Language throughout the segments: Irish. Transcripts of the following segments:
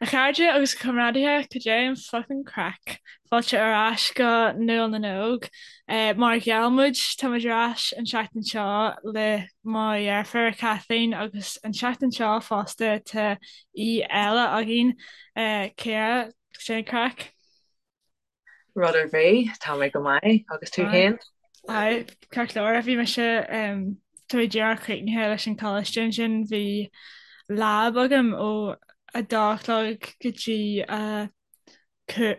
A chairde agus a chomrádaithe, cad é an fucking craic? Fáilte ar ais go Nuall na nÓg. Mar a gheall muid, tá muid ar ais an tseachtain seo le mo dheirfiúr Kathleen agus an tseachtain seo fosta tá aoi eile againn, Ciara, cad é an craic? Rud ar bith, tá mé go maith, agus tú féin? Aye, ceart go leor. Bhí mise, tá mé díreach críochnaithe leis an choláiste ansin, bhí lab agam ó a dó a chlog go dtí a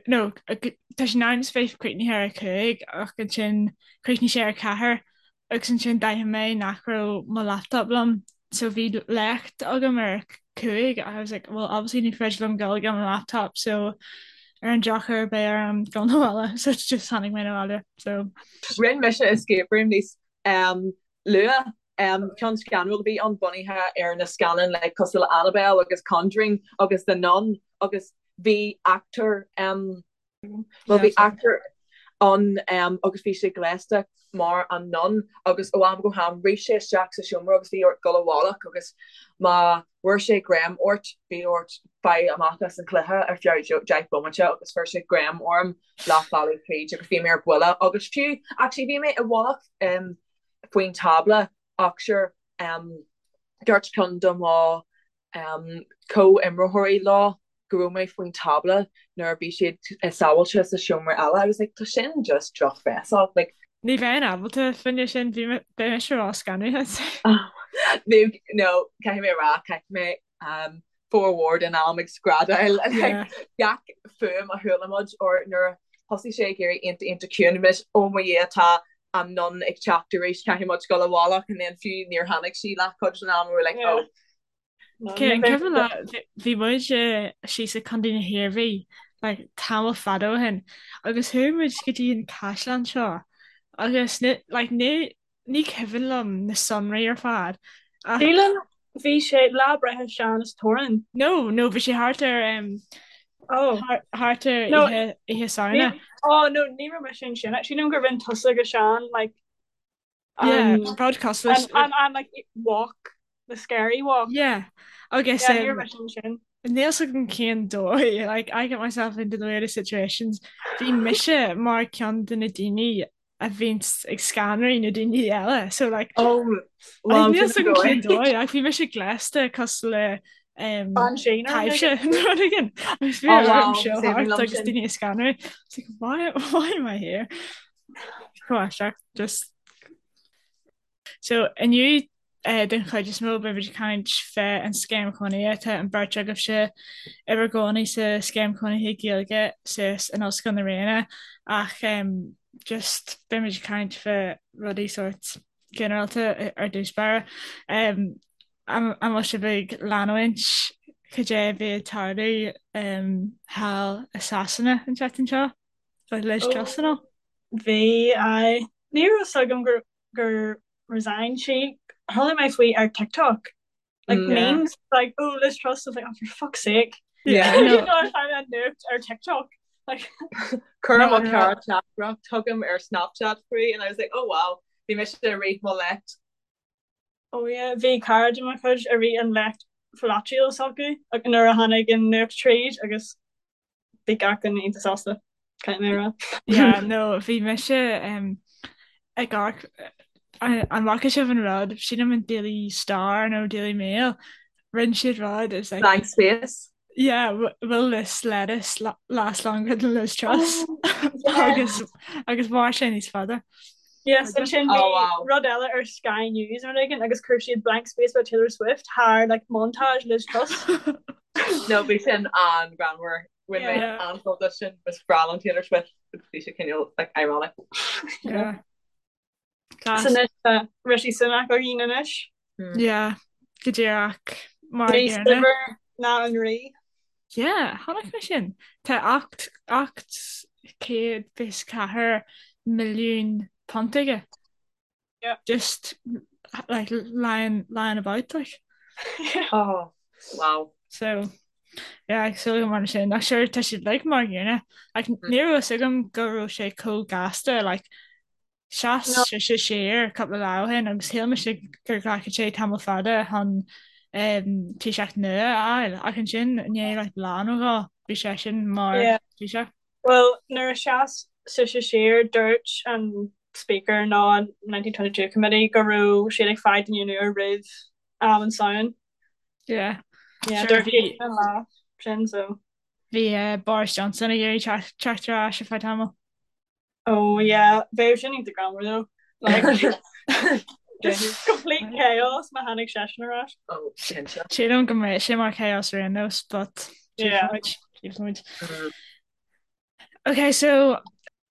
no, tá sé in ainm is bheith críochnaithe ar a cúig ach ansin chríochnaigh sé ar a ceathair agus ansin d'aithin mé nach raibh mo laptop liom so bhí léacht agam ar a cúig I was like well obviously ní féidir liom dul gan mo laptop so ar an drochuair beidh orm dul 'na bhaile so just tháinig mé 'na bhaile so. Rinne mise escape room níos um, luath um, ceann scanrúil a bhí ann bunaithe ar na scannáin like, cosúil le Annabelle agus Conjuring agus The Nun agus bhí actor um, Bhuel bhí actor ann agus bhí sé gléasta mar an nun agus ó am go ham rith sé isteach sa seomra agus bhí ort dul i bhfolach agus má bhfuair sé greim ort bhí ort fáil amach as an cluiche ar feadh 10 bomaite agus fuair sé greim orm leath bealaigh tríd agus bhí mé ar buile agus fiú actually bhí mé i bhfolach faoin tábla ach sure dúirt ceann de mo comhimreoirí leo go raibh mé faoin tábla nuair a bhí siad sábháilte sa seomra eile. I was like, tá sin just drochbhéasach. Like, Ní bheinn ábalta fá choinne sin, bhí mé, beidh mise ró-scanraithe. Bhí, no, caithfidh mé a rá, chaith mé um, formhór den am ag screadaíl like, Yeah. gach fuaim a chuala muid or nuair a thosaigh sé ag éirí iontach iontach ciúin, bhí mise, oh mo Dhia, tá an nun ag teacht arís, caithfidh muid dul i bhfolach and then fiú níor tháinig sí leathchuid den am, we were like, Yeah. oh. Cé an cuimhin leat, bhí muid síos i Contae na hIarmhí like tamall fada ó shin agus chuaigh muid go dtí an caisleán seo agus ní like ní ní cuimhin liom na sonraí ar fad ach Sílim bhí sé lá breithe Sean is Torann. No, no bhí sé thart ar um, Oh. thart ar No, oíche oíche Samhna. Oh no, ní raibh mise ansin. Sílim gur rinne tusa agus Sean like Yeah, an rud cosúil an an an like walk, the scary walk. Yeah, agus Yeah, ní raibh um, mise ansin. níl 'fhios agam cén dóigh, like I get myself into the weirdest situations. Bhí mise mar ceann de na daoine a bhíonns ag scanraí na daoine eile, so like Oh, well, níl sin 'fhios agam cén dóigh. dóigh, ach bhí mise gléasta cosúil le um, Banshee nó rud taibhse éigin. nó rud éigin. Agus bhí Oh orm wow, siúl is aoibhinn thart liom agus sin. daoine ag scanrú. It's like, why, why am I here? Chomh aisteach, just. So inniu den chuid is mó beidh muid ag caint fé an Scéim Chónaithe. Tá an bheirt agaibhse i bhur gcónaí sa Scéim Chónaithe Gaeilge suas in Ollscoil na Ríona ach just beidh muid ag caint fé rudaí sórt ginearálta ar dtús báire. An bhfuil sibh ag leanúint cad é a bhí ag tarlú thall i Sasana an tseachtain seo le Liz Truss and all? Bhí, aye. Ní raibh fhios agam gur gur resign sí. Chuala mé faoi ar TikTok. Like Mm. Yeah. memes like oh Liz Truss I was like oh for fuck's sake. Yeah, You no. know I find that nuacht ar TikTok. Like Chuir No, mo no. chara teachtaireacht chugam ar Snapchat faoi and I was like oh wow bhí mise ag rith mo léacht. oh yeah bhí cara de mo chuid ag rith an léacht pholaitiúil s'acu like, nuair a tháinig an nuacht tríd agus bhí gach duine iontach sásta, caithfidh mé a rá. Yeah, no, bhí mise um, ag amharc an bhfaca sibh an rud, sílim an Daily Star nó Daily Mail, rinne siad rud is like Blank space. yeah, will this lettuce last longer than Liz Truss? Oh, yeah. Agus agus mhair sé níos fada. Yes, ansin Oh bhí wow. rud eile ar Sky News nó rud éigin agus chuir siad blank space by Taylor Swift thar like montage Liz Truss. No bhí sin an-ghreannmhar. Bhain mé Yeah. an-sult as sin is breá liom Taylor Swift agus bhí sé cineál like ironic. Yeah. So Class. anois tá Rishi Sunak againn anois. Yeah, go díreach mar a Níos gcéanna. saibhir ná an rí. Yeah, chonaic mé sin. Tá 824 milliún punt aige. Yeah. Just like lying lying about like. Oh, wow. So yeah, ag súil go mar sin. Ach sure tá siad like mar gcéanna. Like ní raibh fhios agam go raibh sé chomh gasta like sheas No. sé siar cúpla lá ó shin agus shíl mise gur ghlacfadh sé tamall fada chun. Taoiseach nua a fháil ach ansin i ndiaidh like lá nó dhó bhí seisean mar Taoiseach. Bhuel nuair a sheas sise siar dúirt an Speaker nó an 1922 Committee go raibh siad ag fáil duine nua roimh am an Samhain. Yeah. Yeah, dúirt siad an lá sin so. Bhí Boris Johnson ag iarraidh teacht ar ais ar feadh tamaill. Oh yeah, bheadh sin iontach greannmhar though. Like just complete chaos má tháinig seisean ar ais. Oh, cinnte. Sílim go mbeidh sé mar chaos ar aon nós, but Yeah. tchífimid. Ok, so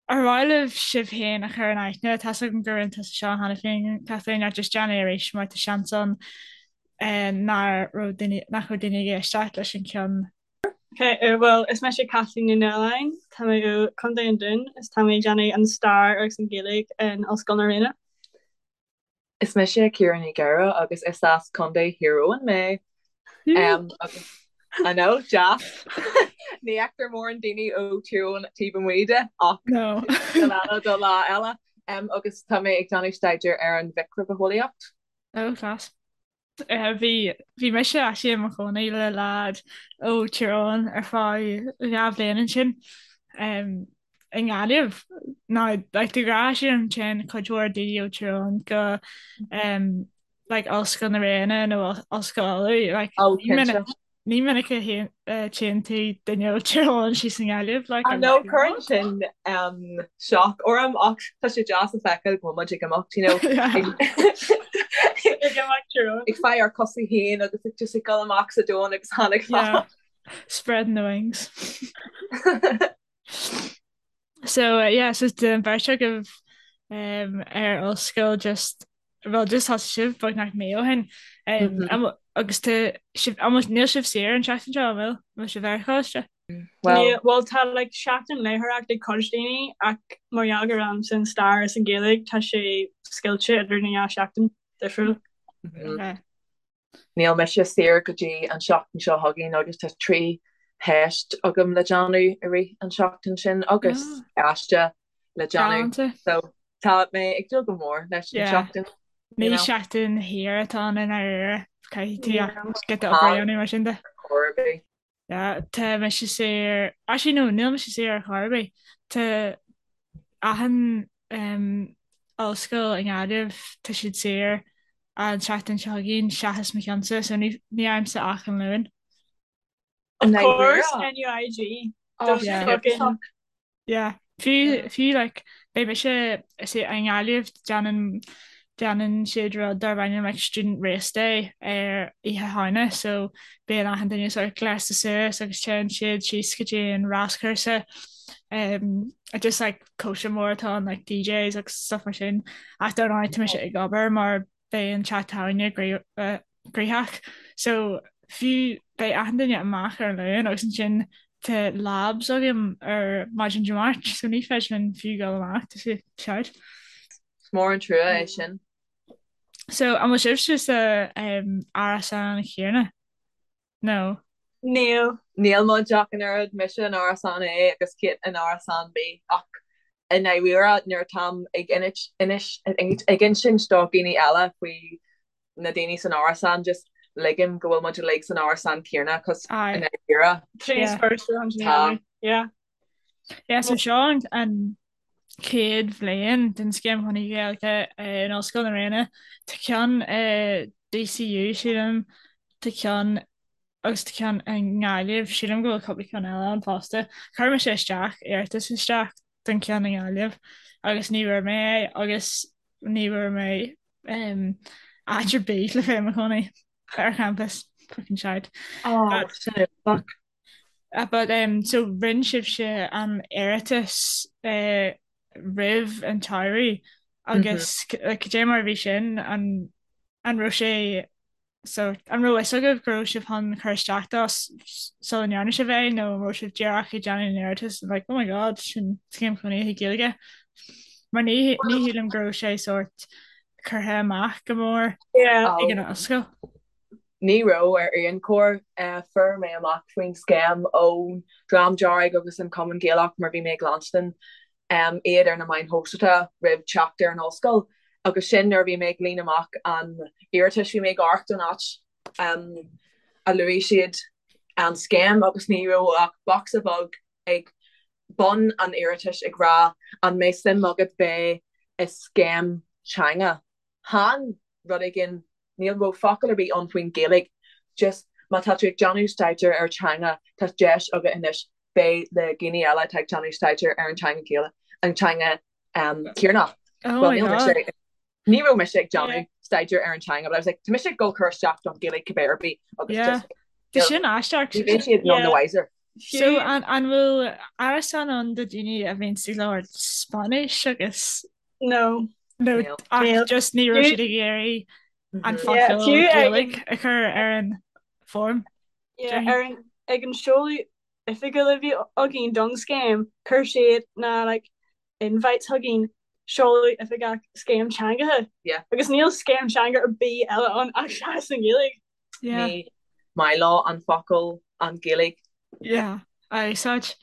ar mhaith libh sibh féin a chur in aithne? Tá's agam gur rinne tusa seo cheana féin, Kathleen, ach just déan é arís mar tá seans ann eh, nach raibh daoine nach raibh daoine ag éisteacht leis an ceann Ok, bhuel, is mise Caitlín Ní Nualláin, tá mé ó Chontae an Dúin is tá mé ag déanamh an Stair agus an Ghaeilge in Ollscoil na Ríona. Is mise Ciara Ní Ghadhra agus is as Contae Thír Eoghain mé. Agus I know, deas. Ní fheictear mórán daoine ó Thír Eoghain taobh amuigh de ach No. sin eile do lá eile. Agus tá mé ag déanamh staidéar ar an mhicribhitheolaíocht. Oh, class. Bhí bhí mise actually i mo chónaí le leaid ó Tír Eoghain ar feadh 2 bhliain ansin i nGaillimh. Now like de ghnáth sílim téann cuid mhór daoine ó Tír Eoghain go like Ollscoil na Ríona nó Ollscoil Uladh like Oh ní minic cinnte. Ní minic a tchíonn tú duine ó Tír Eoghain síos i nGaillimh, like, I know, cuireann sin shock orm ach tá sé deas a feiceáil go bhfuil muid ag imeacht, you know, Yeah. Ag imeacht Tír Eoghain. ag fáil ár cosa féin agus ag just ag dul amach sa domhan agus tháinig Yeah. fad. Spreading the wings. So, uh, yeah, so tá an bheirt agaibh um, ar ollscoil just Bhuel just thosaigh sibh beagnach mí ó shin agus tá sibh almost níl sibh saor an tseachtain seo, an bhfuil? An bhfuil sibh ar choláiste? Bhuel. Bhuel tá like seachtain léitheoireachta ag cuid daoine ach mar gheall gur agamsa an stair is an Ghaeilge tá sé scoilte idir na dhá sheachtain difriúil. Okay. Níl mise saor go dtí an seachtain seo chugainn agus tá 3 theist agam le déanamh i rith an seachtain sin agus aiste le déanamh. Galánta. So tá mé ag dúil go mór leis an Yeah. seachtain, you Ní know. seachtain shaor atá ann i ndáiríre. Caithfidh tú Yeah. giota obair a dhéanamh mar sin de. Chor ar bith. Yeah, tá mise saor, actually no, níl mise saor ar chor ar bith. Tá achan um, ollscoil i nGaillimh, tá siad saor an tseachtain seo chugainn seachas mo cheannsa, so ní, ní fhaighimse ach an Luan. Of course, NUIG. Oh, Those Yeah. fucking Yeah. Fiú, fiú like, beidh mise is é i nGaillimh déanann déanann siad rud darb ainm like Student Race Day ar Oíche Shamhna so bíonn achan duine sort of gléasta suas agus téann siad síos go dtí an ráschúrsa um, just like cóisir mór atá ann like DJs agus stuff mar sin ach dar ndóigh tá mise ag obair mar beidh an teach tábhairne gnóthach so fiú beidh achan duine amach ar an Luan agus ansin tá labs agam ar maidin Dé Máirt so ní féidir linn fiú dul amach tá sé shite. Is mór an trua é sin. So an bhfuil sibhse sa um, árasán chéanna? No. Níl. Níl muid ach an oiread, mise in árasán A agus Kate in árasán B ach i ndáiríre nuair atáim ag ag insint do dhaoine eile faoi na daoine san árasán just ligim go bhfuil muid uilig san árasán céanna cos i ndáiríre tá. Yeah. Yeah, so seo an chéad bhliain den Scéim Chónaithe Gaeilge in Ollscoil na Ríona. Tá ceann i DCU, sílim, tá ceann agus tá ceann i nGaillimh, sílim go bhfuil cúpla ceann eile ann fosta. Chuir mise isteach, iarratas isteach don cheann i nGaillimh agus ní bhfuair mé é agus ní bhfuair mé áit ar bith le bheith i mo chónaí ar champas. Fucking shite. Oh, sin fuck. But um, so rinne sibhse an iarratas uh, roimh an tsamhradh agus cad é mar a bhí sin an an raibh sé so an raibh fhios agaibh go raibh sibh chun cur isteach dó sula ndearna sibh é nó an raibh sibh díreach ag déanamh an iarratas and like oh my god sin scéim chónaithe Gaeilge mar ní ní shílim go raibh sé sort curtha amach go mór ag an ollscoil. Ní raibh ar aon chor. Fuair mé amach faoin scéim ón Dream Dearg agus an Cumann Gaelach mar bhí mé ag leanstan iad ar na meáin shóisialta roimh teacht ar an ollscoil agus sin nuair a bhí mé ag líonadh amach an iarratais bhí mé ag amharc don áit. a luaigh siad an scéim agus ní raibh ach bocsa beag ag bun an iarratais ag rá an mbeidh suim agat bheith i scéim teanga. Chan rud éigin, níl raibh focal ar bith ann faoin Ghaeilge, just má tá tú ag déanamh staidéar ar teanga tá deis agat anois bheith le daoine eile atá ag déanamh staidéar ar an teanga Gaeilge, an teanga Éireannach. Oh Well my níl mise God. Ní raibh mise ag déanamh staidéar ar an teanga but I was like tá mise ag dul cur isteach don Ghaeilge cibé ar bith agus Yeah. just Tá sin aisteach. ní bheidh siad none the Yeah. wiser. So Fiú an an bhfuil árasán ann do daoine a bhíonn ag labhairt Spáinnis agus No. nó Níl. ach Níl. just ní raibh Fiú siad ag iarraidh an Mhm. yeah, focal fiú ag an Gaeilge a chur ar an form, yeah, déarfainn. ar an ag an seoladh oifigiúil a bhí againn don scéim, chuir siad na like invites chugainn, seoladh oifigeach scéim teangacha. Yeah. Agus níl scéim teanga ar bith eile ann ach seachas an Ghaeilge. Yeah. Ní maith leo an focal an Ghaeilge. Yeah, a úsáid.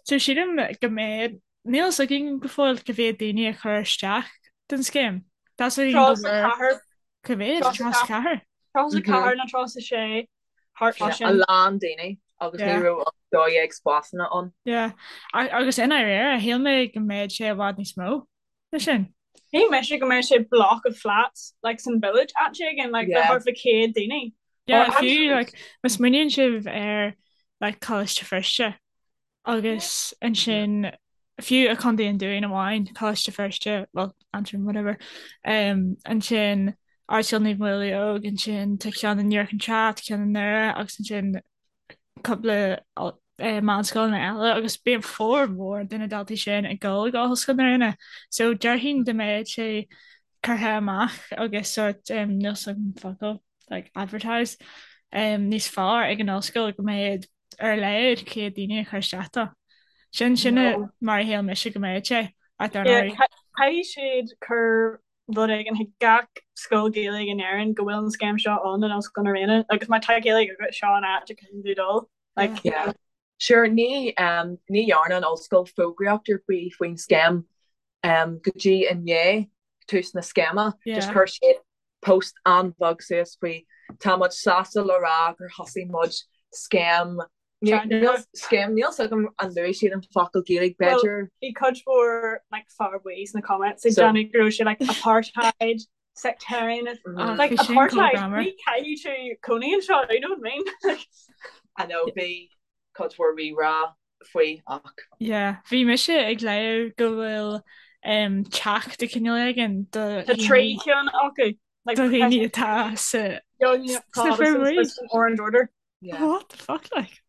So sílim go mbeidh, níl fhios againn go fóill cá mhéad daoine a chuir isteach don scéim. Tá fhios againn go bhfuair 34. cá mhéad? 34. 34 nó 36. thart fá A sin. lán daoine agus ní Yeah. raibh ach 12 spásanna ann. Yeah. Agus i ndáiríre, shíl mé go mbeadh sé i bhfad níos mó ná sin. Shíl mise go mbeadh sé block of flats like san village áit éigin like le Yeah. thart fá 100 daoine. Yeah, Or fiú actually like má smaoiníonn sibh ar like Coláiste Feirste agus ansin fiú i Contae an Dúin amháin, Coláiste Feirste, well, Aontroim, whatever, um, ansin Ardscoil Naomh Maolmhaodhóg, ansin tá ceann in Iúr Chinn Trá, tá ceann i nDoire agus ansin cúpla eh, meánscoileanna eile agus bíonn formhór de na daltaí sin ag dul go Ollscoil na Ríona. So déarfainn dá mbeadh sé curtha amach agus sort um, níl 's agam focal like advertised um, níos fearr ag an ollscoil go mbeadh ar a laghad 100 daoine a chur isteach dó. Sin sin mar a shíl mise go mbeadh sé, ach dar ndóigh. Caithfidh siad cur rud éigin chuig gach scoil Gaeilge in Éirinn go bhfuil an scéim seo ann in Ollscoil na Ríona agus má tá Gaeilge agat seo an áit a caithfidh tú dul. Like, Yeah. Sure, ní um, ní dhearna an ollscoil fógraíocht ar bith faoin scéim um, go dtí i ndiaidh tús na scéime. Just Yeah. chuir siad post an-bheag suas faoi tá muid sásta le rá gur thosaigh muid scéim scéim níl 's agam an luaigh siad an focal Gaeilge b'fhéidir. Bhí cuid mhór like fear buí sna comments ag déanamh go raibh sé like apartheid sectarian like apartheid ní caithfidh tú cónaí anseo you know what I mean? I know bhí cuid mhór rí-rá faoi ach. Yeah, bhí mise ag léamh go bhfuil um, teach de chineál éigin do Tá trí cheann acu. Like, do dhaoine atá sa Young sna Protestants and Orange Order. Yeah. What the fuck like?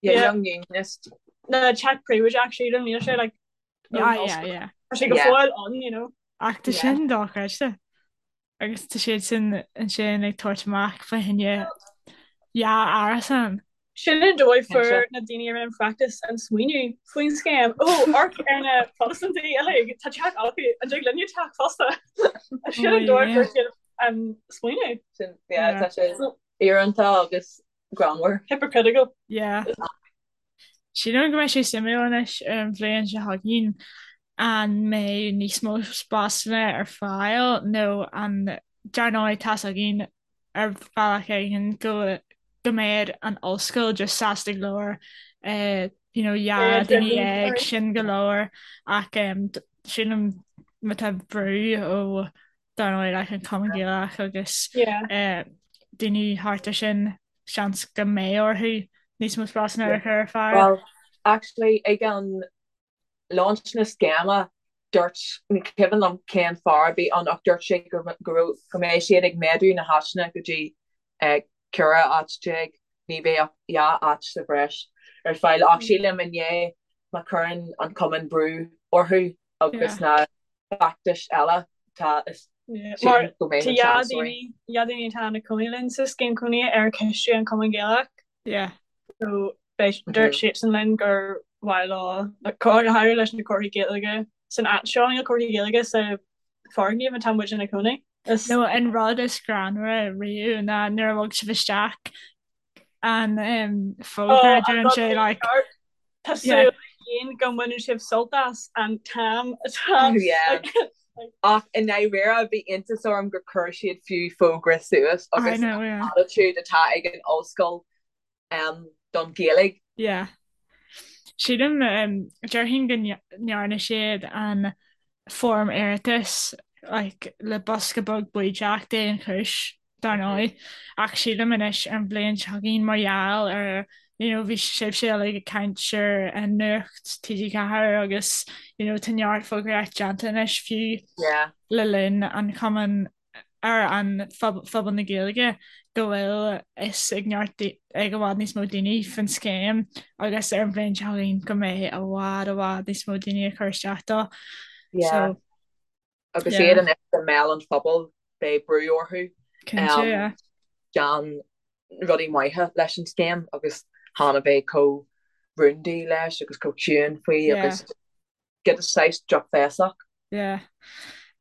Yeah, Yeah. Young Unionist. Na teach príobháideach sílim níl sé like Yeah, yeah, yeah. Tá sé go Yeah. fóill ann, you know. Ach tá Yeah. sin dochreidte. Agus tá siad sin ansin ag tabhairt amach fá choinne dhá árasán. Sin an dóigh fuair na daoine a rinne an feachtas an smaoineamh faoin scéim. Ó, amharc ar na Protastúnaigh uilig, tá teach acu, an dtig linne teach fosta? Sin an dóigh fuair siad an smaoineamh. Sin, yeah, tá sé íorónta agus greannmhar. Hypocritical. Yeah. Sílim go mbeidh sé suimiúil anois ar an bhliain seo chugainn an mbeidh níos mó spásanna ar fáil nó an dar ndóigh tá's againn ar bhealach éigin go go mbeidh an ollscoil just sásta go leor eh, you know, 12 duine sin go leor ach em, sílim má tá brú ó dar ndóigh like an Cumann Gaelach agus Yeah. eh, daoine thart ar sin seans go mbeidh orthu níos mó spásanna a chur ar fáil. Well, actually, ag an launch na scéime, dúirt, ní cuimhin liom cén fear a bhí ann ach dúirt sé go go raibh, go mbeidh siad ag méadú na háiteanna go dtí 14 áit, ní bheidh ach 2 áit sa bhreis ar fáil ach sílim i ndiaidh má chuireann an cumann brú orthu agus na feachtais eile tá is Mar tá dhá daoine dhá daoine atá ina cónaí linn sa scéim cónaithe ar ciste an Chumann Gaelach. Yeah. So beidh dúirt siadsan linn gur mhaith leo like, go háirithe leis na comharthaí Gaeilge san áit seo níl comharthaí Gaeilge sa foirgneamh atá muid ina cónaí. Is Nó an rud is greannmhaire riamh ná nuair a bhog sibh isteach an um, fógra Oh, deireann sé like Tá súil againn go mbaineann sibh sult as an t-am atá Yeah. Ach i ndáiríre bhí iontas orm gur chuir siad fiú fógra suas agus an attitude atá ag an ollscoil don Ghaeilge. Yeah. Sílim, déarfainn go ndearna siad an foirm iarratais like le bosca beag baoideach d'aon chúis. dar ndóigh, ach sílim anois ar an bhliain seo chugainn mar gheall ar you know bhí sibhse uilig ag caint ar an Nuacht TG4 agus you know tá neart fógraíocht déanta anois fiú Yeah. le linn an Chumann ar an phobal na Gaeilge go bhfuil fhios ag neart ag i bhfad níos mó daoine faoin scéim agus ar an bhliain seo chugainn go mbeidh i bhfad i bhfad níos mó daoine ag cur isteach dó. Yeah. So Agus yeah. iad anois i mbéal an phobail, beidh brú orthu Cinnte, yeah. déanamh rudaí maithe leis an scéim agus chan a bheith chomh rúndaí leis agus chomh ciúin faoi Yeah. agus get a saghas drochbhéasach. Yeah.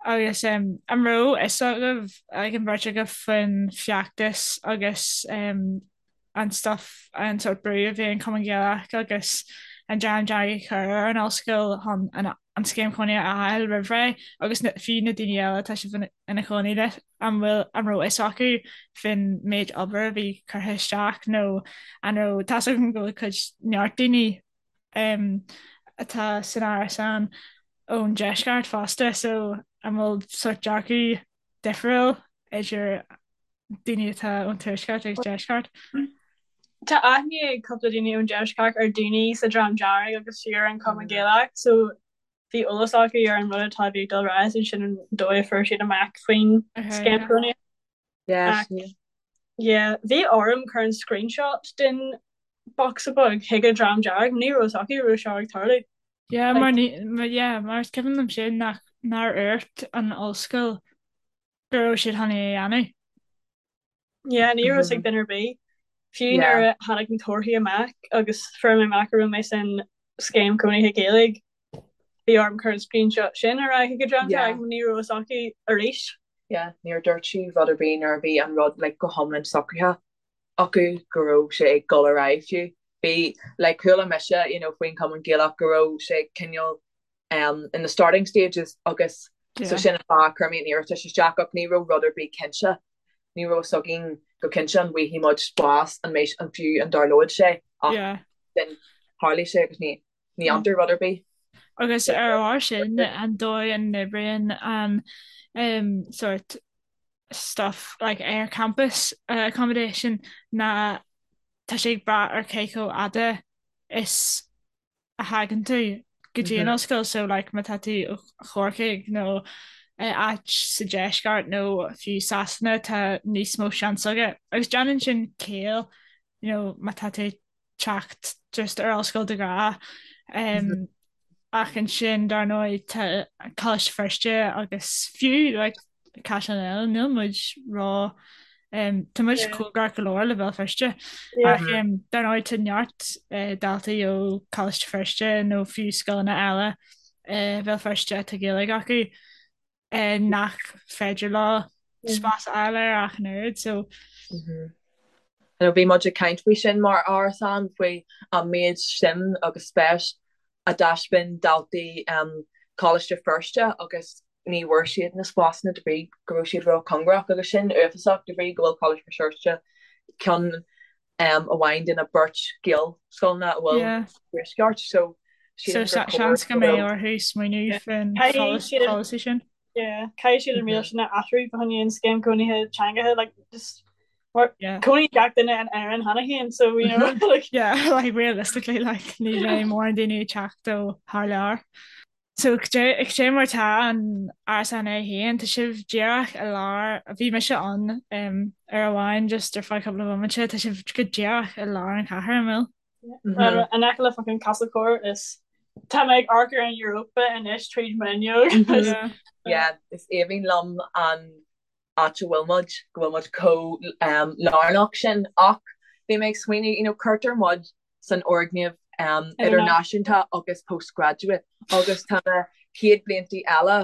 Agus um, an raibh fhios agaibh ag an bheirt agaibh faoin feachtas agus um, an stuff, an sórt brú a bhí an Cumann Gaelach agus an Dream Dearg ag cur ar an ollscoil chun an an scéim chónaithe a fháil roimh ré agus na, fiú na daoine eile atá sibh ina chónaí le, an bhfuil, an raibh fhios acu faoin méid obair a bhí curtha isteach nó an raibh, tá's agam go bhfuil cuid neart daoine um, atá san árasán ón deisceart fosta so an bhfuil sórt dearcadh difriúil idir daoine atá ón tuaisceart agus deisceart. Tá aithne ag cúpla daoine ón deisceart ar daoine sa Dream Dearg agus fiú ar an Cumann Gaelach so bhí eolas acu ar an rud atá bhí ag dul ar aghaidh sin an dóigh a fuair siad amach faoin scéim cónaithe. Yeah. Yeah, bhí orm cur an screenshot den bocsa beag chuig an Dream Dearg, ní raibh fhios acu go raibh seo ag tarlú. Yeah, mar ní, yeah, mar is cuimhin liom sin nach nár dhúirt an ollscoil go raibh siad chun é a dhéanamh. Yeah, ní raibh fhios ag duine ar bith. Fiú nuair a tháinig na torthaí amach agus fuair mé amach go raibh mé san scéim cónaithe Gaeilge, bhí orm cur an screenshot sin ar aghaidh chuig an Dream Dearg, ní raibh fhios acu arís. Yeah, níor dúirt sí rud ar bith nuair a bhí an rud like go hiomlán socraithe acu go raibh sé ag dul ar aghaidh fiú. Bhí like chuala mise you know faoin Chumann Gaelach go raibh sé cineál um, in the starting stages agus so sin an fáth a chuir mé an iarratas isteach ach ní raibh rud ar bith cinnte. Ní raibh fhios againn go cinnte an bhfaighidh muid spás an mbeidh an fiú an dtarlóidh sé ach Yeah. then tharlaigh sé agus ní ní fhantar rud ar bith. Agus ar ár sin an dóigh a n-oibríonn an um, sort stuff like ar campus uh, accommodation ná tá sé ag brath ar cé chomh fhada is a thagann tú go dtí an ollscoil so like má tá tú ó Chorcaigh nó áit sa deisceart nó fiú Sasana tá níos mó seans agat agus déanann sin ciall you know má tá tú ag teacht just ar ollscoil do ghrá um, ach ansin dar ndóigh tá Coláiste Feirste agus fiú like Caisleán eile, níl muid ró tá muid cóngarach go leor le Béal Feirste ach dar ndóigh tá neart daltaí ó Choláiste Feirste nó fiú scoileanna eile Bhéal Feirste atá Gaeilge acu nach féidir leo spás a fháil air ach an oiread so. Bhí muid ag caint faoi sin mar árasán faoi an méid suim agus spéis a dtaispeáin daltaí Choláiste Feirste agus ní bhfuair siad na spásanna de bhrí go raibh siad ró-chóngarach agus sin uafásach de bhrí go bhfuil Coláiste Feirste ceann amháin de na beirt Ghaelscoileanna a bhfuil sa Tuaisceart so sílim gur chóir seans go mbeidh orthu smaoineamh faoin pholasaí sin. Yeah, caithfidh siad an riail sin a athrú fá choinne an scéim cónaithe teangacha like just mar cónaíonn gach duine in Éirinn cheana féin so you know like Yeah, like realistically like ní bheidh mórán daoine ag teacht ó thar lear. So cad é mar tá an árasán é féin, tá sibh díreach i lár, bhí mise ann uair amháin just ar feadh cúpla bomaite, tá sibh go díreach i lár an chathair, an bhfuil? Well, in aice le fucking Castlecourt is tá mé ag amharc ar an Europa anois tríd m'fhuinneog. Yeah, is aoibhinn liom an áit a bhfuil muid, go bhfuil muid chomh lárnach sin ach bhí mé ag smaoineamh, you know, cuirtear muid san fhoirgneamh idirnáisiúnta agus postgraduate agus tá na chéad bliantaí eile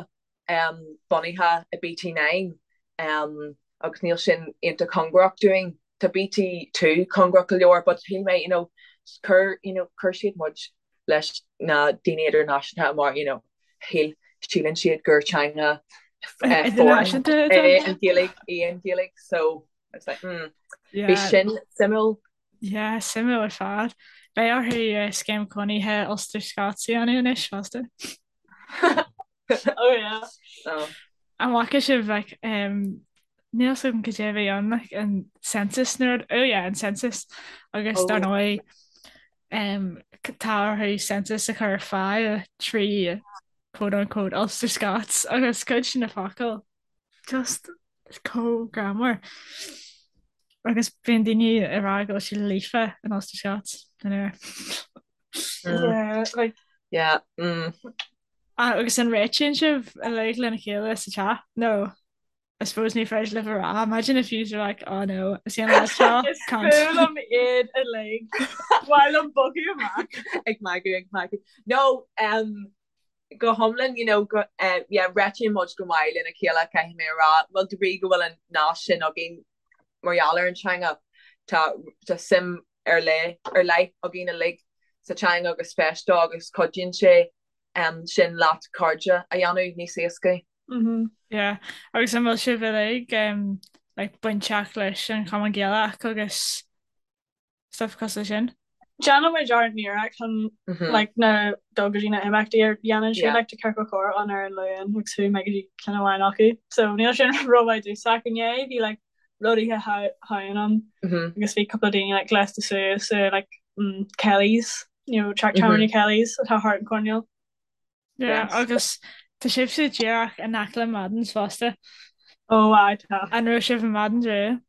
bunaithe i BT9 agus níl sin iontach cóngarach dúinn. Tá BT2 cóngarach go leor but shíl mé, you know, chuir, you know, chuir siad muid leis na daoine idirnáisiúnta mar, you know, shíl. síleann siad gur teanga foreign é an Ghaeilge í an Ghaeilge so I was like mm bhí sin suimiúil. Yeah, suimiúil ar fad. Beidh orthu scéim cónaithe Ulster Scots a dhéanamh anois fosta. Oh yeah. Oh. An bhfaca sibh like um, níl 'fhios agam cad é a bhí ann like an census nó rud oh yeah an census agus dar oh. ndóigh um, tá orthu census a chur ar fáil trí quote unquote Ulster Scots agus cuid de na focail just chomh greannmhar agus bíonn daoine ag rá go bhfuil siad líofa in Ulster Scots anyway. Yeah, like Yeah. Mm. Ah, agus an réitíonn sibh uilig lena chéile sa teach? No. I suppose ní féidir libh a rá. Imagine if you were like, oh no, is an lá seo, Is fuath liom iad uilig. Ba mhaith liom bogadh amach. Ag magadh, ag magadh. No, um, go hiomlán, you know, go, uh, yeah, réitíonn muid go maith lena chéile, caithfidh mé a rá. Bhuel, de bhrí go bhfuil an nasc sin againn mar gheall ar an teanga, tá, tá suim ar leith, ar leith againn uilig sa teanga agus spéis dó agus cuidíonn sé um, sin leat cairde a dhéanamh níos éascaí. Yeah, agus an bhfuil sibh uilig um, like, bainteach leis an Chumann Gaelach agus stuff cosúil sin? Déanann muid ár n-iarracht chun like na dul go dtí na imeachtaí a dhéanann siad like tá ciorcal comhrá ann ar an Luan agus chuaigh mé go dtí ceann amháin acu so níl sin rómhaith domhsa ach inné bhí like rud oíche Shamhain ann agus bhí cúpla daoine like gléasta suas i like mm, Kelly's you know teach tábhairne Kelly's atá thart an coirnéal. Yeah, agus tá sibhse díreach in aice le Madden's fosta. Ó aye tá. An raibh sibh i Madden's riamh?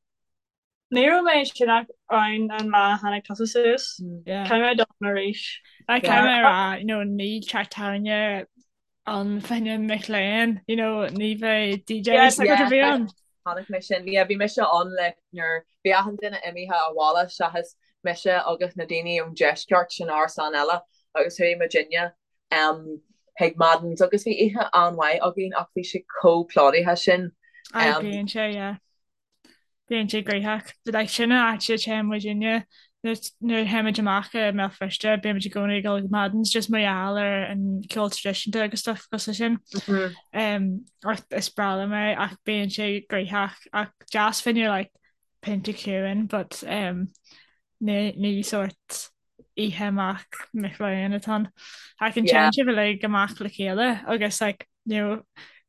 Ní raibh mé sin ach ann an lá a tháinig tusa suas. Caithfidh mé dul ann arís. Like caithfidh mé a rá, you know, níl teach tábhairne ann fá choinne mic léinn, you know, ní bheidh DJs ag a bheith ann. Chonaic mé sin. Yeah, bhí mise ann like nuair bhí achan duine imithe abhaile seachas mise agus na daoine ón deisceart san árasán eile agus chuaigh muidinne um, chuig Madden's agus bhí oíche an-mhaith againn ach bhí sé chomh plódaithe sin. Aye, bíonn sé, yeah. Bíonn sé gnoitheach. But like sin an áit a téann muidinne nuair a théimid amach i mBéal Feirste, bímid i gcónaí ag dul go Madden's just mar gheall ar an ceol traidisiúnta agus stuff cosúil sin. Um, ach is breá liom é ach bíonn sé gnoitheach ach deas fá choinne like pionta ciúin but um, ní, ní sort oíche amach mic léinn atá ann. Ach an téann sibh uilig amach le chéile agus like you know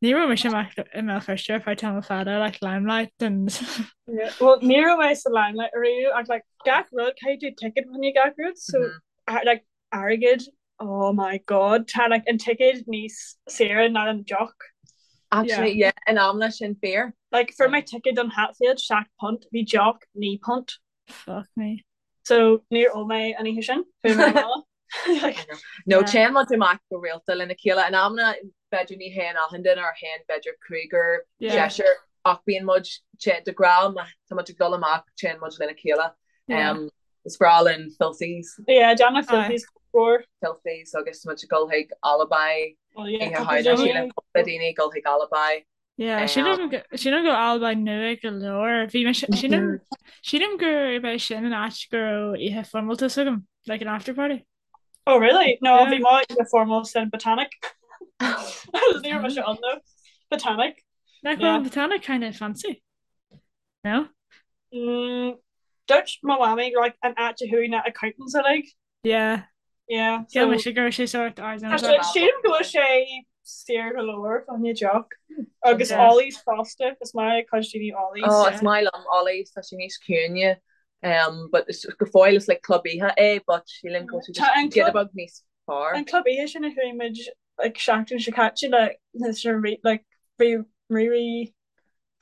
ní raibh mise amach i mBéal Feirste ar feadh tamall fada like Limelight and Yeah, well ní raibh mé sa Limelight ariamh ach like gach rud caithfidh tú ticket fá choinne gach rud so mm -hmm. like airgead oh my god tá like an ticket níos saoire ná an deoch. Actually yeah, yeah in amanna sin fíor. Like fuair mé ticket don Hatfield £7 bhí deoch £9. Fuck me. So níor ól mé an oíche sin, chuaigh mé abhaile. No téann muid amach go rialta lena chéile. In amanna b'fhéidir ní théann achan duine or théann b'fhéidir cúigear, seisear ach bíonn muid de ghnáth má tá muid ag dul amach téann muid lena chéile. Um, is breá linn Filthies. Yeah, déanamh Filthies mór. Filthies agus muid ag dul chuig Alibi. Oh yeah, cúpla daoine. Cúpla daoine ag dul chuig Alibi. Yeah, sílim go sílim go Alibi nua go leor. Bhí mé sílim sílim gurb é sin an áit go raibh oíche foirmeálta agam, like an after party. Oh really? No, bhí mo oíche foirmeálta san Botanic. Ní raibh mise ann though. Botanic. Nach bhfuil an Botanic kind of fancy? No? Mm, dúirt mo mhamaí like an áit a chuaigh na accountants uilig. Yeah. Yeah. Shíl mise go raibh sé sórt ardán. Sílim go bhfuil sé saor go leor fá choinne deoch. Agus Ollie's fosta, is maith le cuid daoine Ollie's. Oh, is maith liom Ollie's, tá sé níos ciúine. Um, but is go fóill is like club oíche é, but sílim go bhfuil sé just giota beag níos fearr. An club oíche sin a chuaigh muid like seachtain seo caite le like bhí rí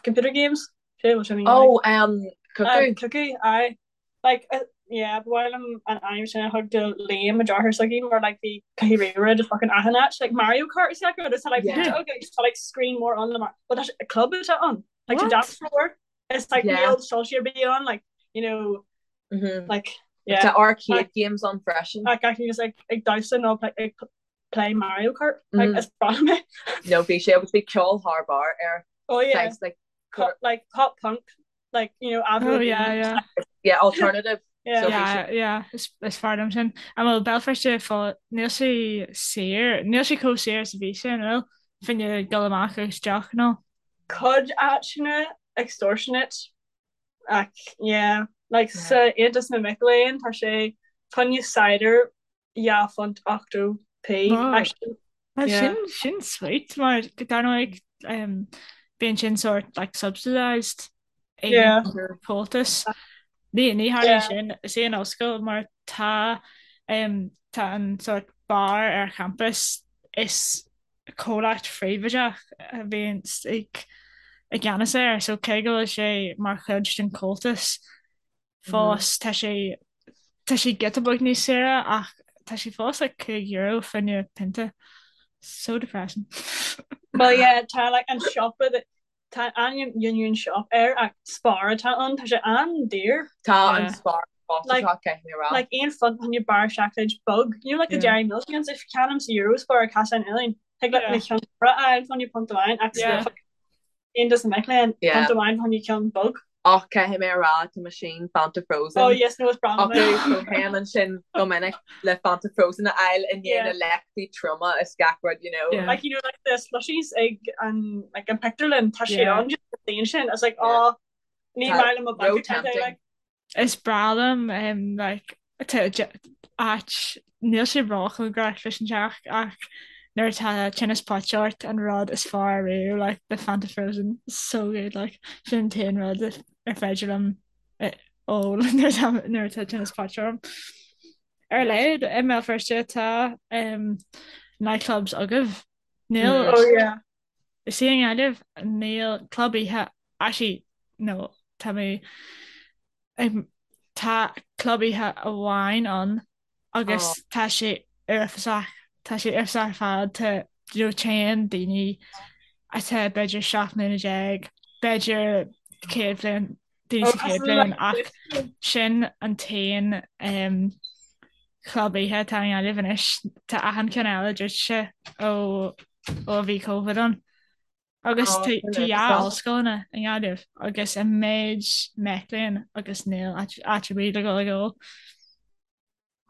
computer games. Sé bhfuil sin Oh, um, Cuckoo. Cuckoo, aye. Like, uh, yeah, ba mhaith liom an ainm sin a thug do Liam mo deartháir s'againn mar like bhí cluichí ríomhaire de fucking achan áit like Mario Kart is like is like yeah. okay, just like screen mór ann le mar but tá club atá ann like tá dance floor it's like yeah. níl soilse ar bith ann like you know mm -hmm. like yeah Tá arcade like, games ann freisin like I can just like ag damhsa nó like ag play Mario Kart like mm. is breá liom é No bhí sé agus bhí ceol thar barr air oh yeah Thanks, like pop, like pop punk like you know Avril Oh yeah yeah yeah alternative yeah so yeah yeah is is fearr liom sin. An bhfuil Béal Feirste fá níl sé saor níl sé chomh saor is a bhí sé an bhfuil? Fá choinne dul amach agus deoch nó? Cuid áiteanna extortionate ach yeah like sa Aontas na Mic Léinn tá sé fá choinne cider £2 80p actually. Well sin sin sweet mar dar ndóigh bíonn sin sort like subsidised ag an Comhaltas. Ní ní tharlaíonn sin is é an ollscoil mar tá tá an sort bar ar champas is comhlacht phríobháideach a bhíonn ag i gceannas air so cé go bhfuil sé mar chuid den Chomhaltas fós tá sé tá sé giota beag níos saoire ach tá sé fós like €5 fá choinne pionta. So depressing. Well yeah tá like an siopa that Tá ainm Union Shop air ach Spar atá ann, tá sé an-daor. Tá an Spar costasach, caithfidh mé a rá. Like £1 fá choinne barra seacláid beag, you know like the Dairy Milk ones, if ceannaím sa Eurospar ar Caisleán Uidhilín, thig leat na ceann móra a fháil fá choinne punt amháin ach sa Aontas na Mic Léinn, punt amháin fá choinne ceann beag. Ach caithfidh mé a rá, tá meaisín Fanta Frozen Oh yes, no, is breá liom é. acu, so théim ansin go minic le Fanta Frozen a fháil i ndiaidh na léachtaí troma is gach rud, you know. Yeah. Like, you know, like the slushies ag an, like an pictiúrlann, tá sé Yeah. ann just an daon sin. It's like, Yeah. oh, ní Tá maith liom mo bank ró account é, tempting. like. Is breá liom um, like, tá de- áit, níl sé róchóngarach leis an teach ach nuair atá tinneas poite ort an rud is fearr ariamh like the Fanta Frozen so good like sin an t-aon rud ar féidir liom eh, ól nuair atá nuair atá tinneas poite orm. Ar a laghad i mBéal Feirste tá um, nightclubs agaibh. Níl Mm. Oh yeah. Is í i nGaillimh níl club oíche actually no tá mé ag tá club oíche amháin ann agus Oh. tá sé uafásach tá sé uafásach ar fad tá you know téann daoine atá b'fhéidir 17 mbliana b'fhéidir 100 bhliain daoine Oh, sa chéad cosúil bhliain le ach sin an t-aon um, chlub oíche atá i nGaillimh anois. Tá achan ceann eile druidte ó ó a bhí Covid ann. Agus Oh, tá sin tá dhá uafásach. ollscoileanna i nGaillimh agus an méid mac léinn agus níl áit áit ar bith le dhul ag ól.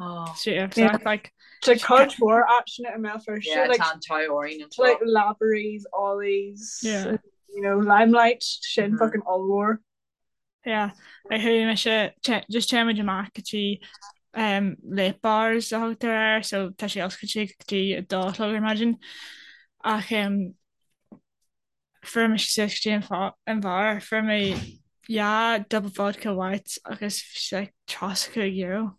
Oh. Sé uafásach, like, Tá cuid mhór áiteanna i mBéal Feirste, Yeah, like, tá an t-ádh orainn anseo. like Lavery's, Ollie's, Yeah. you know, Limelight, sin Mhm. fucking ollmhór. Yeah, like chuaigh mise te- just téimid amach go dtí um, late bars a thugtar air, so tá sé oscailte go dtí a dó a chlog ar maidin. Ach um, fuair mise suas go dtí an fá- an bheár, fuair mé dhá double vodka white agus bhí sé like €35.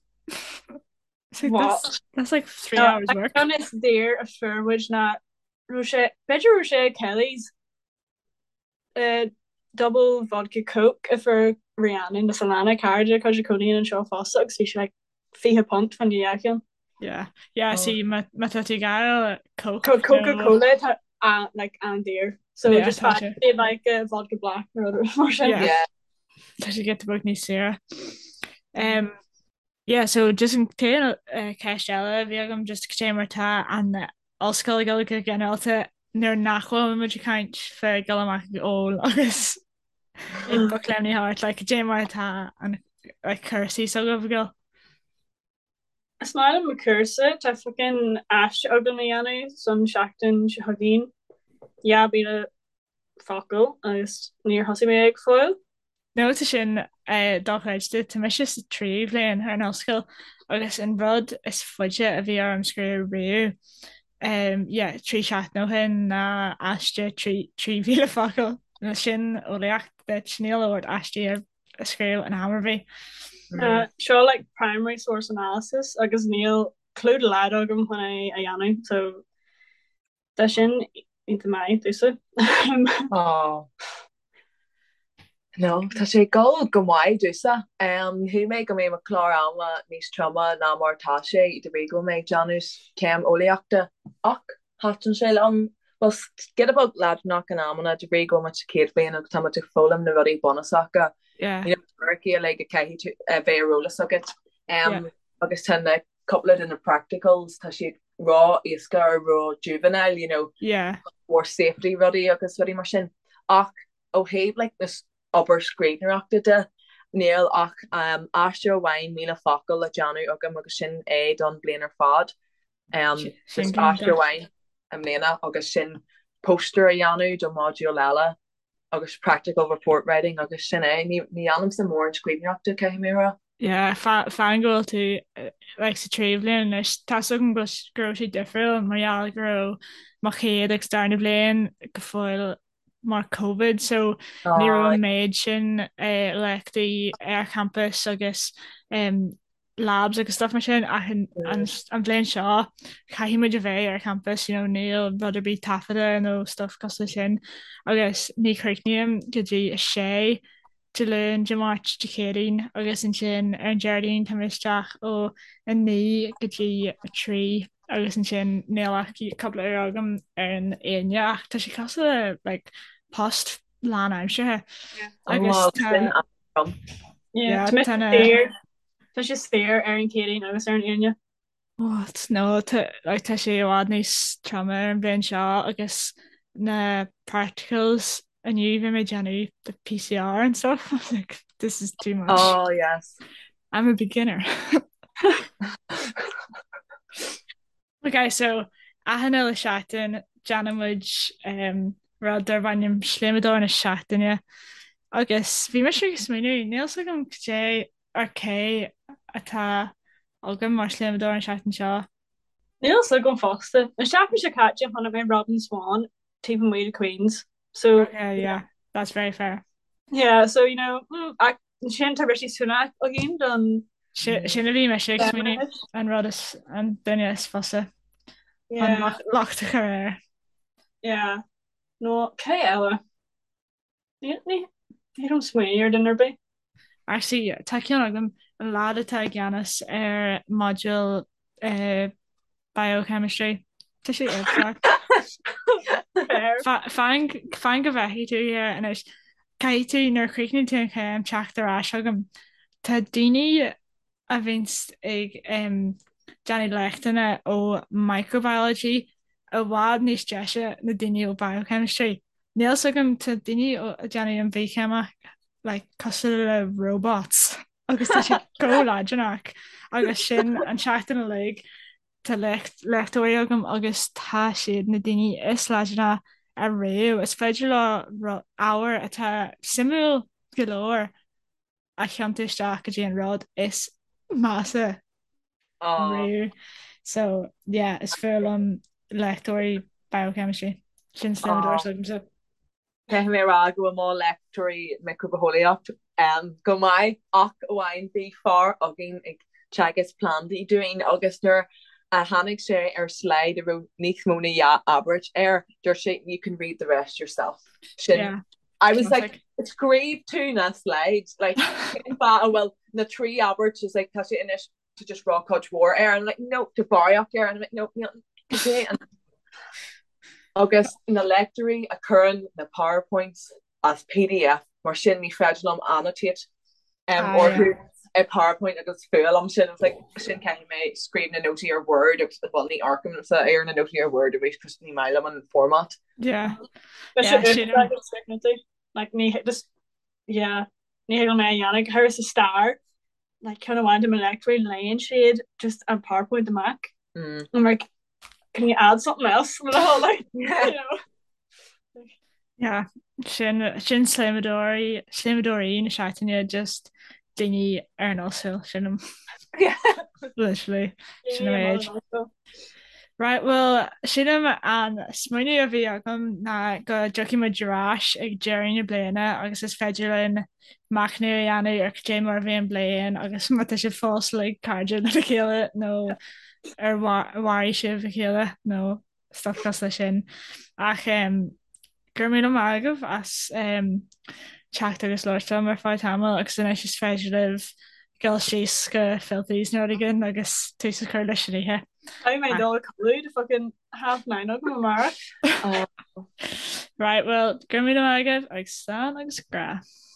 It's like What? that's, that's like 3 hours work. An is daor a fuair muid ná raibh sé b'fhéidir raibh sé ag Kelly's double vodka coke a fuair Rhiannon is Alana cara cuid a cónaíonn anseo fosta agus bhí sé like £20 fá choinne dhá cheann. Yeah, yeah, Oh. see má má tá tú ag gael Coke Co nó Coca-Cola tá a like an-daor. So Yeah, just tá find sé. like a vodka black nó rud mar sin. Yeah. Yeah. Tá sé giota beag níos saoire. Um, Yeah, so just an t-aon ceist eile a bhí agam just cad é mar tá an ollscoil ag dul go ginearálta nuair nach bhfuil muid ag caint fá dul amach ag ól agus ag bocléimní thart, like cad é mar atá an like cúrsaí s'agaibh ag dul? Is maith liom mo chúrsa, tá fucking aiste agam a dhéanamh san seachtain seo chugainn, 2,000 focal agus níor thosaigh mé go fóill. No tá sin dochreidte. Tá mise sa tríú bhliain ar an ollscoil agus an rud is faide a bhí orm scríobh riamh, yeah, 3 seachtain ó shin ná aiste 3,000 focal. Nó sin eolaíocht duit, níl ort aistí a scríobh in am ar bith. Seo like primary source analysis agus níl clue dá laghad agam chun é a dhéanamh so Tá sin iontach maith domhsa. Aww. No, tá sé ag dul go maith domhsa. Shíl mé go mbeadh mo chlár ama níos troime ná mar atá sé de bhrí go bhfuil mé ag déanamh céim eolaíochta ach thaitin sé liom. Bhuel, giota beag leadránach in amanna de bhrí go bhfuil muid sa chéad bhliain agus tá muid ag foghlaim na rudaí bunúsacha. Yeah. You know, teoiricí uilig a caithfidh tú a bheith ar eolas agat. Yeah. Agus tá na cúpla de na practicals, tá siad ró-éasca or ró-juvenile, you know, Yeah. more safety rudaí agus rudaí mar sin. Ach ó thaobh like na obair scríbhneoireachta de, níl ach um, aiste amháin 1,000 focal le déanamh agam agus sin é don bliain ar fad. Um, Sin just aiste iontach. amháin i mbliana agus sin. Poster a dhéanamh do module eile agus practical report writing agus sin é. Ní dhéanaimse mórán scríbhneoireachta, caithfidh mé a rá. Yeah, fan go bhfuil tú like sa tríú bhliain anois, tá 's agam go raibh sé difriúil mar gheall go raibh mo chéad agus darna bhliain go fóill mar Covid so ní raibh an méid sin léachtaí ar campus agus labs agus stuff mar sin ach an bhliain seo caithfidh muid a bheith ar campus, you know, níl rud ar bith taifeadta nó stuff cosúil leis sin agus ní chríochnaím go dtí a sé Dé Luain, Dé Máirt, Dé Céadaoin agus ansin ar an Déardaoin tá mé isteach ó 9 go dtí 3 agus ansin níl ach cúpla uair agam ar an Aoine ach tá sé cosúil le like post lánaimseartha agus tá Yeah, tá na Tá sé saor ar an Chéadaoin agus ar an Aoine. What? No, tá like tá sé i bhfad níos troime ar an bhliain seo agus na practicals inniu bhí mé ag déanamh the PCR and stuff. I was like, this is too much. Oh, yes. I'm a beginner. Ok, so achan uile seachtain déanann muid um, rud darb ainm Sléamadóir na Seachtaine agus bhí mise ag smaoineamh, níl 's agam cad é ar cé atá agam mar shléamadóir an seachtain seo. Níl 's agam fosta. An seachtain seo caite chonaic mé Robin Swann taobh amuigh de Queen's. So Okay, yeah, that's very fair. Yeah, so you know, mm, ach ansin tá Rishi Sunak againn don Sin a bhí mise ag smaoineamh an rud is an duine is fusa an locht a chur air. Yeah. No, cé eile? Ní raibh smaoineamh ar duine ar bith. Actually, tá ceann agam, an lad atá i gceannas ar module biochemistry. Tá sé iontach. Fan fan go bhfeicfidh tú air anois. Caithfidh tú nuair a chríochnaíonn tú an chéim teacht ar ais chugam. Tá daoine a bhíonns ag déanamh léachtanna ó microbiology i bhfad níos deise na daoine ó biochemistry. Níl 's agam, tá daoine ag déanamh an bhithcheimic like cosúil le robots agus tá siad chomh leadránach agus sin an tseachtain uilig tá léachtóirí agam agus tá siad na daoine is leadránaí ariamh. Is féidir leo ábhar atá suimiúil go leor a thiontú isteach go dtí an rud is measa riamh. So yeah, is fuath liom léachtóirí biochemistry. Sin sléamadóir s'agamsa. Caithfidh mé a rá go bhfuil mo léachtóirí micribhitheolaíocht go maith ach amháin bhí fear againn ag teagasc plandaí dúinn agus nuair a tháinig sé ar slide a raibh níos mó na dhá abairt air, dúirt sé you can read the rest yourself. Sin yeah. I was like, scríobh tú na slides, like, cén fáth a bhfuil na trí abairt is like, tá sé anois to just rá cuid mhór air, and I'm like, no, tá barraíocht air, and I'm like, no, níl, cad é an Agus na léachtóirí a chuireann na PowerPoints as PDF, mar sin ní féidir liom annotate um, orthu i PowerPoint agus fuath liom sin, it's like, sin caithfidh mé scríobh na nótaí ar Word agus bhuel ní amharcaimse ar na nótaí ar Word arís cos ní maith liom an format. Yeah. Yeah, sin Like ní just yeah, ní thig liom é a dhéanamh go háirithe sa stair like ceann amháin de mo léachtóirí léann siad just an PowerPoint amach. Mm. I'm like can you add something else? like, you know. Yeah, sin sin sléamadóirí sléamadóirí na seachtaine just daoine ar an ollscoil sin literally sin an méid. Right, well sílim an smaoineamh a bhí agam ná go dtiocfaidh muid ar ais ag deireadh na bliana agus is féidir linn machnamh a dhéanamh ar cad é mar a bhí an bliain agus má tá sibh fós like cairde lena chéile nó ar mharaigh sibh a chéile nó stuff cosúil leis sin. Ach go raibh míle maith agaibh as teacht agus labhairt liom ar feadh tamaill agus anois is féidir libh dul síos go Filthy's nó rud éigin agus tús a chur leis an oíche. Caithfidh mé dul a chodladh tá fucking half nine agam amárach. Right, well, go raibh míle maith agaibh agus slán agus grá.